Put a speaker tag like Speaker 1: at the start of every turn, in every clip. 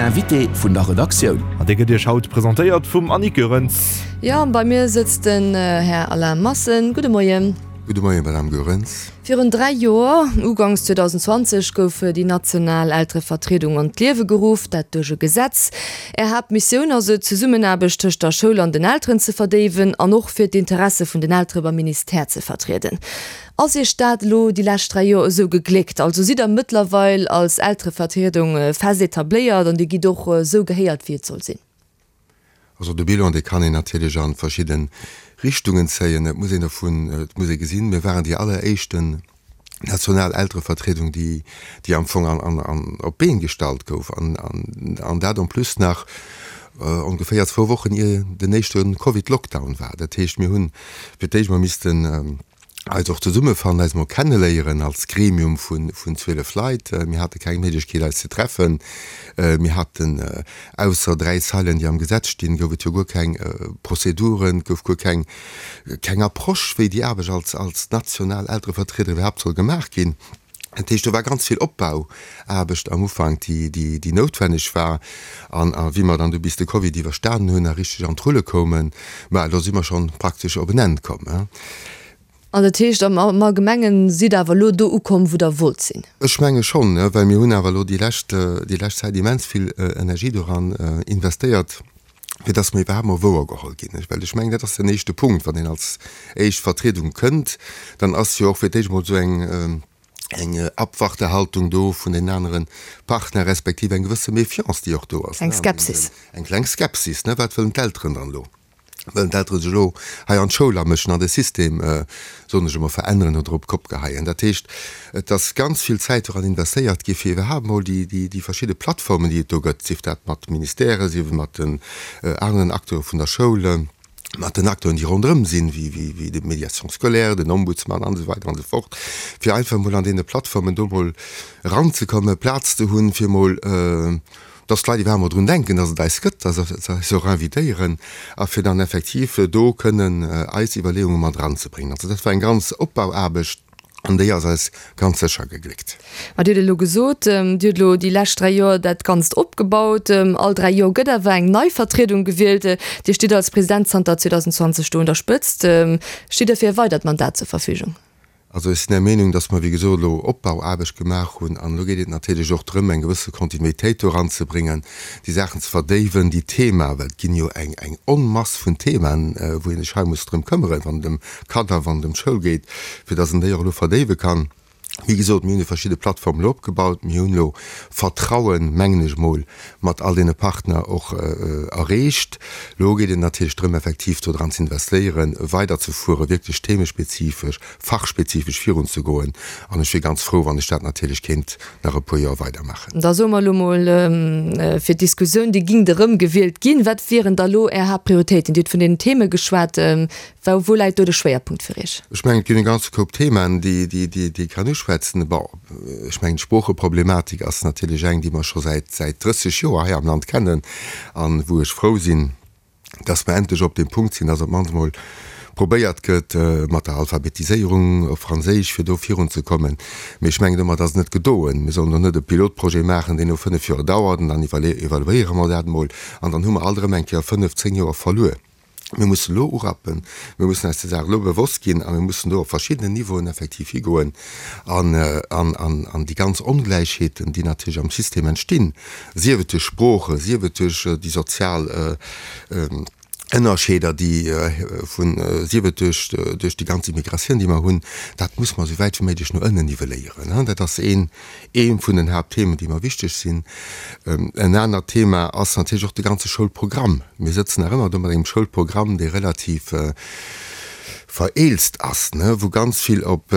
Speaker 1: Invité vun der Redaktioun.
Speaker 2: An dee gëtt Iech haut presentéiert vum Annick Goerens.
Speaker 3: Jo, bei mir sëtzt den Här Alain Massen. Gudde Moien.
Speaker 4: Gudde Moien, Madame Goerens.
Speaker 3: Virun 3 Joer, uganks 2020, gouf déi national Elterevertriedung an d'Liewe geruff, dat duerch e Gesetz. Är Haaptmissioun ass et, d'Zesummenaarbecht tëscht der Schoul an den Elteren ze verdéiwen an och fir d'Interesse vun den Eltere beim Ministère ze vertrieden. Ass Iech dat elo déi lescht 3 Joer esou gegléckt? Also sidd der mëttlerweil als Elterevertriedung fest etabléiert an Dir gitt och esou gehéiert, wéi et soll sinn?
Speaker 4: Also de Bilan, dee kann een natierlech a verschidde Richtungen zéien. Et muss een dovun, et muss ee gesinn, mir waren déi alleréischten national Elterevertriedung, déi, déi am Fong an, an, an op d'Been gestallt gouf an, an, an dat en plus nach ongeféier zwou Wochen ier den éischte Covid-Lockdown war. Dat heescht, mir hunn fir d'éischt emol missten, eis och zesummefannen, eis emol kenneléieren als Gremium vun 12 Leit. Mir hate keng Méiglechkeet eis ze treffen. Mir haten, ausser 3 Zeilen déi am Gesetz stinn, gouf et jo guer keng Prozeduren, et gouf guer keng keng Approche wéi déi Aarbecht als als national Elterevertrieder iwwerhaapt soll gemaach ginn. Dat heescht, do war ganz vill Opbauaarbecht am Ufank, déi déi déi noutwenneg war. An a wéi mer dann du bis de Covid iwwerstanen hunn a richteg an d'Rulle koumen, ma do si mer schonn praktesch op en Enn komm.
Speaker 3: An dat heescht, am Allgemengen sidd Der awer elo do ukomm, wou Der wollt sinn?
Speaker 4: Ech menge schonn, well mir hunn awer elo déi lescht, déi lescht Zäit immens vill Energie doran investéiert, fir dass mer iwwerhaapt mol wouergeholl ginn. Well ech mengen, dat ass den éischte Punkt, wann een als éischt Vertriedung kënnt, dann ass jo och fir d'éischt mol esou eng, eng Abwartehaltung do vun den anere Partner, respektiv eng gewësse Méfiance, déi och do ass.
Speaker 3: Eng Skepsis.
Speaker 4: Eng kleng Skepsis, ne? Wat wëllen d'Elteren dann elo? Wëllen d'Eltere sech elo hei an d'Schoul amëschen, an de System, soen ech emol, veränneren oder op d'Kopp geheien? Dat heescht, et ass ganz vill Zäit doran investéiert gi fir iwwerhaapt emol déi, déi, déi verschidde Plattformen, déi et do gëtt, sief dat mat Ministèrë, sief et mat den aneren Acteure vun der Schoul, mat den Acteuren, déi ronderëm sinn, wéi, wéi, wéi de Médiation scolaire, den Ombudsman an esou weider an esou fort, fir einfach emol an deene Plattformen do emol eranzekommen, Plaz ze hunn, fir emol, dass d'Leit iwwerhaapt mol drun denken, dass et eis gëtt, dass se eis och invitéieren a fir dann effektiv do kënnen eis Iwwerleeunge mat eranzebréngen. Also dat war eng ganz Opbauaarbecht an déi ass eis ganz sécher gegléckt.
Speaker 3: Ma Dir hutt elo gesot, Dir hutt elo déi lescht 3 Joer dat Ganzt opgebaut. All 3 Joer gëtt awer eng nei Vertriedung gewielt. Dir stitt als President zanter 2020 do un der Spëtzt. Stitt Der fir e weidert Mandat zur Verfügung?
Speaker 4: Also ech sinn der Meenung, dass mer, wéi gesot, elo Opbauaarbecht gemaach hunn. An elo geet et natierlech och drëm, eng gewësse Kontinuitéit do eranzebréngen, déi Saachen ze verdéiwen, déi Themaen, well et ginn jo eng, eng Onmass vun Themaen, wou ee sech hei muss drëm këmmeren, wann et ëm Kanner, wann et ëm d'Schoul geet, fir dass een déi och elo verdéiwe kann. Wéi gesot, mir hunn déi verschidde Plattformen elo opgebaut. Mir hunn elo Vertrauen, mengen ech emol, mat all deene Partner och erreecht. Elo geet et natierlech drëm, effektiv do dran ze investéieren, weiderzefueren, wierklech themespezifesch, fachspezifesch virunzegoen. An ech wier ganz frou, wann ech dat natierlech kéint nach e puer Joer weidermaachen.
Speaker 3: Da soe mer elo mol fir d'Diskussioun, Dir gingt erëm gewielt ginn. Wat wieren da elo Är Haaptprioritéiten? Dir hutt vun deenen Theme geschwat. Wou läit do de Schwéierpunkt fir Iech?
Speaker 4: Ech mengen, et ginn e ganze Koup Themen, déi ee kann uschwätzen. Bon, ech mengen, d'Sproocheproblematik ass natierlech eng, déi mer scho säit 30 Joer hei am Land kennen an wou ech frou sinn, dass mer endlech op deem Punkt sinn, dass op d'mannst emol probéiert gëtt, mat der Alphabetiséierung op Franséisch, fir do virunzekommen. Mee ech mengen, domat ass et net gedoen. Mir sollen do net e Pilotprojet maachen, deen no 5 Joer dauert, an dann evaluéiere mer dat emol, an dann hu mer alt erëm eng Kéier 5, 10 Joer verluer. Mir mussen elo urappen, mir mussen eis der Saach elo bewosst ginn a mir mussen do op verschiddenen Niveauen effektiv higoen an, an, an, an déi ganz Ongläichheeten, déi natierlech am System entstinn, sief et duerch Sprooche, sief et duerch déi sozial Ënnerscheeder, déi vun, sief et duerch, duerch déi ganz Immigratioun, déi mer hunn, dat muss mer esou wäit wéi méiglech no ënnen nivelléieren. Dat ass een, ee vun den Haaptthemen, déi mer wichteg sinn. En anert Thema ass natierlech och de ganze Schoulprogramm. Mir sëtzen nach ëmmer do mat engem Schoulprogramm, dee relativ vereelzt ass, wou ganz vill op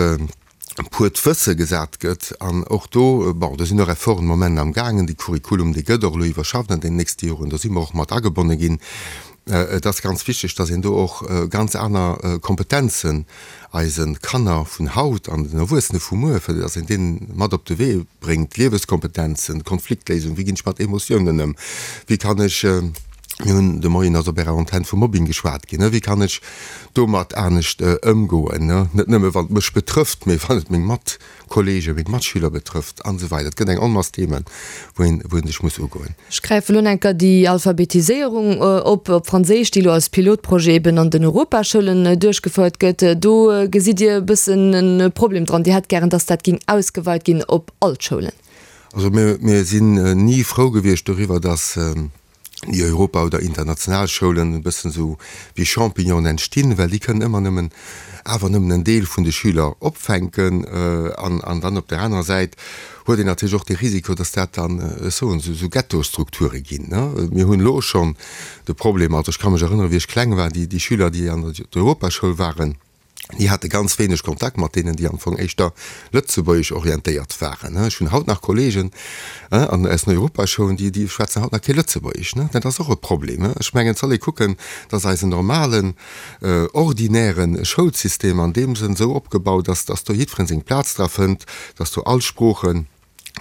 Speaker 4: puert Wësse gesat gëtt. An och do, bon, do sinn och Efforten de Moment am gaangen. De Curriculum, dee gëtt och elo iwwerschafft an deenen nächste Joren. Do si mer och mat agebonne ginn. Et ass ganz wichteg, dass een do och ganz aner Kompetenzen eise Kanner vun haut an den Erwuessene vu muer, fir dass een deenen mat op de Wee bréngt, Lieweskompetenzen, Konfliktléisung, wéi ginn ech mat Emotiounen ëm, wéi kann ech. Mir hunn de Moien ass op Ärer Antenn vu Mobbing geschwat ginn. Wéi kann ech domat anescht ëmgoen? Net nëmme wann et mech betrëfft, mee wann et meng Matkolleegen, meng Matschüler betrëfft an esou weider. Et gëtt eng Onmass Themen, wou een, wou een sech muss ugoen.
Speaker 3: Ech gräifen elo enker déi Alphabetiséierung op, op Franséisch, déi elo als Pilotprojet eben an den Europaschoulen duerchgefouert gëtt. Do gesitt Dir e bëssen e Problem dran. Dir hätt gären, dass dat géing ausgeweit ginn op all d'Schoulen.
Speaker 4: Also mir, mir sinn ni frou gewiescht doriwwer, dass déi Europa oder international Schoulen e bëssen esou wéi Champignonen entstinn, well déi kënnen ëmmer nëmmen, awer nëmmen en Deel vun de Schüler opfänken. An, an dann op där anerer Säit huet een natierlech och de Risiko, dass dat dann, ech soen, esou, esou Ghettostrukture ginn, ne. Mir hunn elo schonn de Problem, also ech ka mech erënneren, wéi ech kleng war, déi, déi Schüler, déi an der Europaschoul waren, Déi hate ganz wéineg Kontakt mat deenen, déi am Fong éischter lëtzebuergesch orientéiert waren. Ech hunn haut nach Kollegen an aus den Europaschoulen, déi, déi schwätzen haut nach kee Lëtzebuergesch. Dat ass och e Problem. Ech mengen, et soll ee kucken, dass eisen normalen, ordinäre Schoulsystem an deem Sënn esou opgebaut ass, dass do jiddweree seng Plaz dra fënnt, dass do all Sproochen,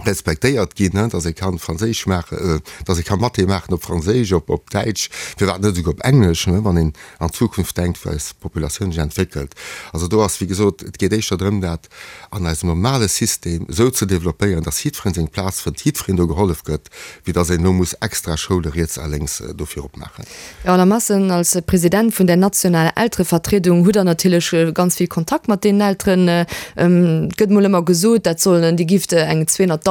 Speaker 4: respektéiert ginn, dass ee kann Franséisch maachen, dass ee ka Mathé maachen op Franséisch, op op Däitsch, firwat net esouguer op Englesch, wann een an d'Zukunft denkt, wou eis Populatioun sech entwéckelt. Also do ass, wéi gesot, et geet éischter drëm, dat an eisem normale System esou ze developpéieren, dass jiddweree seng Plaz fënnt, jiddwereen do gehollef gëtt, wéi dass een elo muss extra Schoule riets a lénks dofir opmaachen.
Speaker 3: Jo, Alain Massen, als President vun der nationaler Elterevertriedung hutt Der natierlech ganz vill Kontakt mat deenen Elteren. Et gëtt mol ëmmer gesot, dat sollen, Dir gifft eng 200.000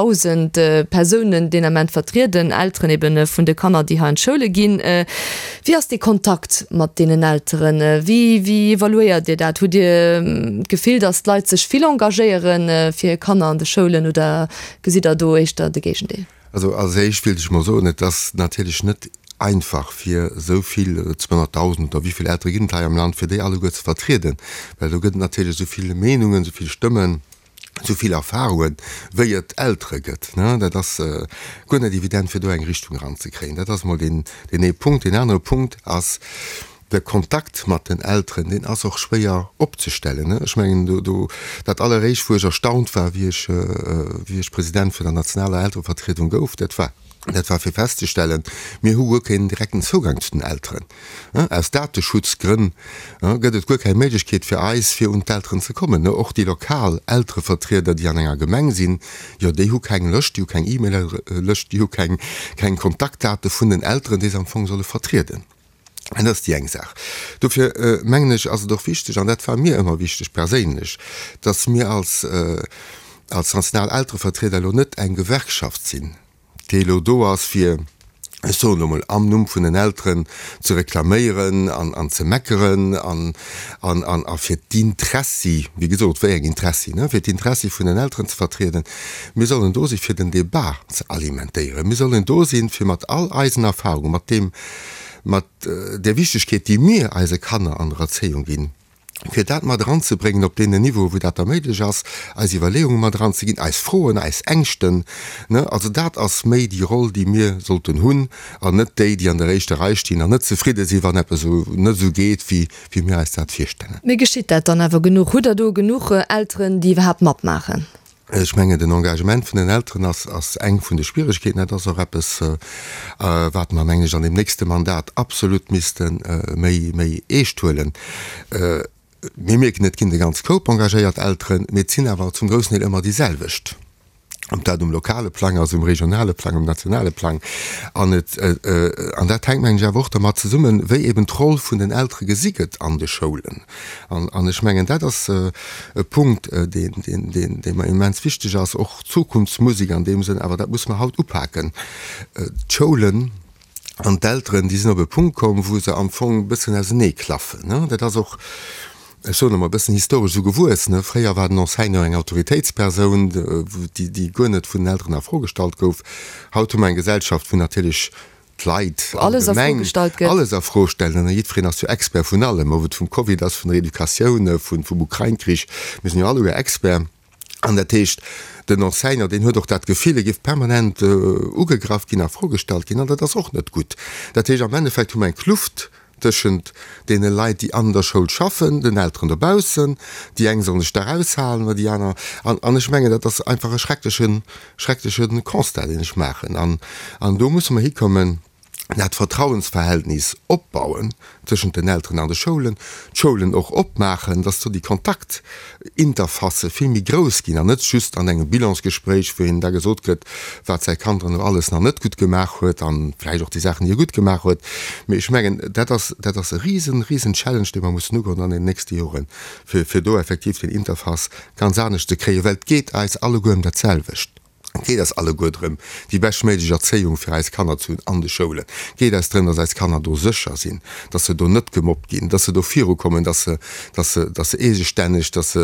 Speaker 3: Persounen deen Ament vertrieden, Elteren eben vun de Kanner, déi hei an d'Schoule ginn. Wéi ass dee Kontakt mat deenen Elteren? Wéi, wéi evaluéiert Dir dat? Hutt Dir d'Gefill, datt d'Leit sech vill engagéiere fir hir Kanner an de Schoulen oder gesitt Der do éischter de Géigendeel?
Speaker 4: Also als éischt wéilt ech mol soen, et ass natierlech net einfach fir esou vill, 200.000 oder wéi vill Eltere ginn et hei am Land, fir déi alleguer ze vertrieden, well do gëtt et natierlech esou vill Meenungen, esou vill Stëmmen, esou vill Erfahrungen, wéi et Eltere gëtt. Dat ass guer net evident fir do eng Richtung eranzekréien. Dat ass mol deen ee Punkt. Deen anere Punkt ass, De Kontakt mat den Elteren, deen ass och schwéier opzestellen. Ech mengen, do, do, dat alleréischt, wou ech erstaunt war, wéi ech, wéi ech President vun der nationaler Elterevertriedung gouf, dat war, dat war fir festzestellen, mir hu guer keen direkten Zougang zu den Elteren. Aus Dateschutzgrënn gëtt et guer keng Méiglechkeet fir eis, fir un d'Elteren ze kommen. Och déi lokal Elterevertrieder, déi an enger Gemeng sinn, jo, déi hu keng Lëscht, déi hu keng E-Mail-Lëscht, déi hu keng, keng Kontaktdate vun den Elteren, déi se am Fong solle vertrieden. Dat ass déi eng Saach. Dofir mengen ech, ass et och wichteg, an dat war mir ëmmer wichteg perséinlech, datt mir als, als national Elterevertrieder elo net eng Gewerkschaft sinn, déi elo do ass fir, ech soen elo mol, am Numm vun den Elteren ze reklaméieren an, an ze meckeren an, an, an, a fir d'Intressi, wéi gesot, wéi eng Intressi, ne, fir d'Intressi vun den Elteren ze vertrieden. Mir sollen do si fir den Débat ze alimentéieren. Mir sollen do sinn, fir mat all eisen Erfahrungen, mat deem, mat där Wichtegkeet, déi mir eise Kanner an der Erzéiung ginn, fir dat mat eranzebréngen op deenen Niveaue wou dat da méiglech ass, eis Iwwerleeunge mat eranzeginn, eis Froen, eis Ängschten. Also dat ass méi déi Roll, déi mir sollten hunn, an net déi, déi an der éischter Rei stinn an net zefridde sinn, wann eppes esou net esou geet, wéi mir eis dat virstellen.
Speaker 3: Mee geschitt dat dann awer genuch? Hutt Der do genuch Elteren, déi iwwerhaapt matmaachen?
Speaker 4: Ech mengen, den Engagement vun den Elteren ass, ass eng vun de Schwieregkeeten. Dat ass och eppes, wat mer, mengen ech, an deem nächste Mandat absolut misste méi, méi eescht huelen. Mir mierken, et ginn de ganz Koup engagéiert Elteren, mee et sinn awer zum groussen Deel ëmmer déi selwecht, ob dat um lokale Plang ass, um regionale Plang, um nationale Plang. An et, an dat hänkt, mengen ech, awer och dermat zesummen, wéi eben d'Roll vun den Eltere gesi gëtt an de Schoulen. An ech mengen, dat ass e Punkt, dee mer immens wichteg ass, och Zukunftsmusek an deem Sënn, awer dat musse mer haut upaken. D'Schoulen an d'Elteren, déi sinn op e Punkt komm, wou se am Fong e bëssen auseneeklaffen. Dat ass och, ech soen emol, e bëssen historesch esou gewuess. Fréier war den Enseignant eng Autoritéitspersoun, déi guer net vun den Elteren a Fro gestallt gouf. Haut hu mer eng Gesellschaft, wou natierlech d'Leit allgemeng alles a Fro stellen an jiddwereen ass jo Expert vun allem, ob et vum Covid ass, vun der Educatioun, vum Ukrain-Krich, mir sinn jo alleguer Expert. An dat heescht, den Enseignant, deen huet och dat Gefill, e géif permanent ugegraff ginn, a Fro gestallt ginn, an dat ass och net gutt. Dat heescht, am Endeffekt hu mer eng Kluft tëschent deene Leit, déi an der Schoul schaffen, den Elteren dobaussen. Déi eng sollen sech da eraushalen oder déi aner. An, an ech mengen, dat ass einfach e schrecklechen, schreckleche Constat, deen ech maachen. An, an do musse mer hikommen. Dat Vertrauensverhältnis opbauen tëschent den Elteren an de Schoulen, d'Schoulen och opmaachen, dass do déi Kontaktinterfacë vill méi grouss ginn an net just an engem Bilansgespréich, wou een da gesot kritt, wat säi Kand dann elo alles nach net gutt gemaach huet a vläicht och déi Saachen, déi e gutt gemaach huet. Mee ech mengen, dat ass, dat ass e risen, risen Challenge, dee mer mussen ugoen an den nächste Joren, fir, fir do effektiv den Interface ganz anescht ze kréien, well et geet eis alleguer ëm dat selwecht. Et geet eis alleguer drëm, déi beschtméiglech Erzéiung fir eis Kanner ze hunn an de Schoulen. Et geet eis drëm, dass eis Kanner do sécher sinn, dass se do net gemobbt ginn, dass se do virukommen, dass se, dass se, dass se eegestänneg, dass se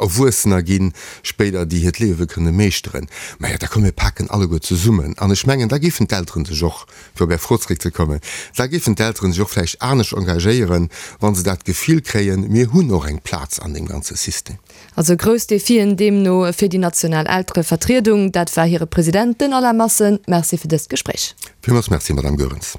Speaker 4: Erwuessener ginn spéider, déi hiert Liewe kënne meeschteren. Majo, da komm mir paken alleguer zesummen. An ech mengen, da géifen d'Elteren sech och, fir op Är Fro zréckzekommen, da géifen d'Elteren sech och vläicht anescht engagéieren, wa se dat Gefill kréien, mir hunn och eng Plaz an deem ganze System.
Speaker 3: Also grouss Defien deemno fir déi national Elterevertriedung. Dat war hire President, den Alain Massen. Merci fir dëst Gespréich.
Speaker 4: Villmools Merci, Madame Goerens.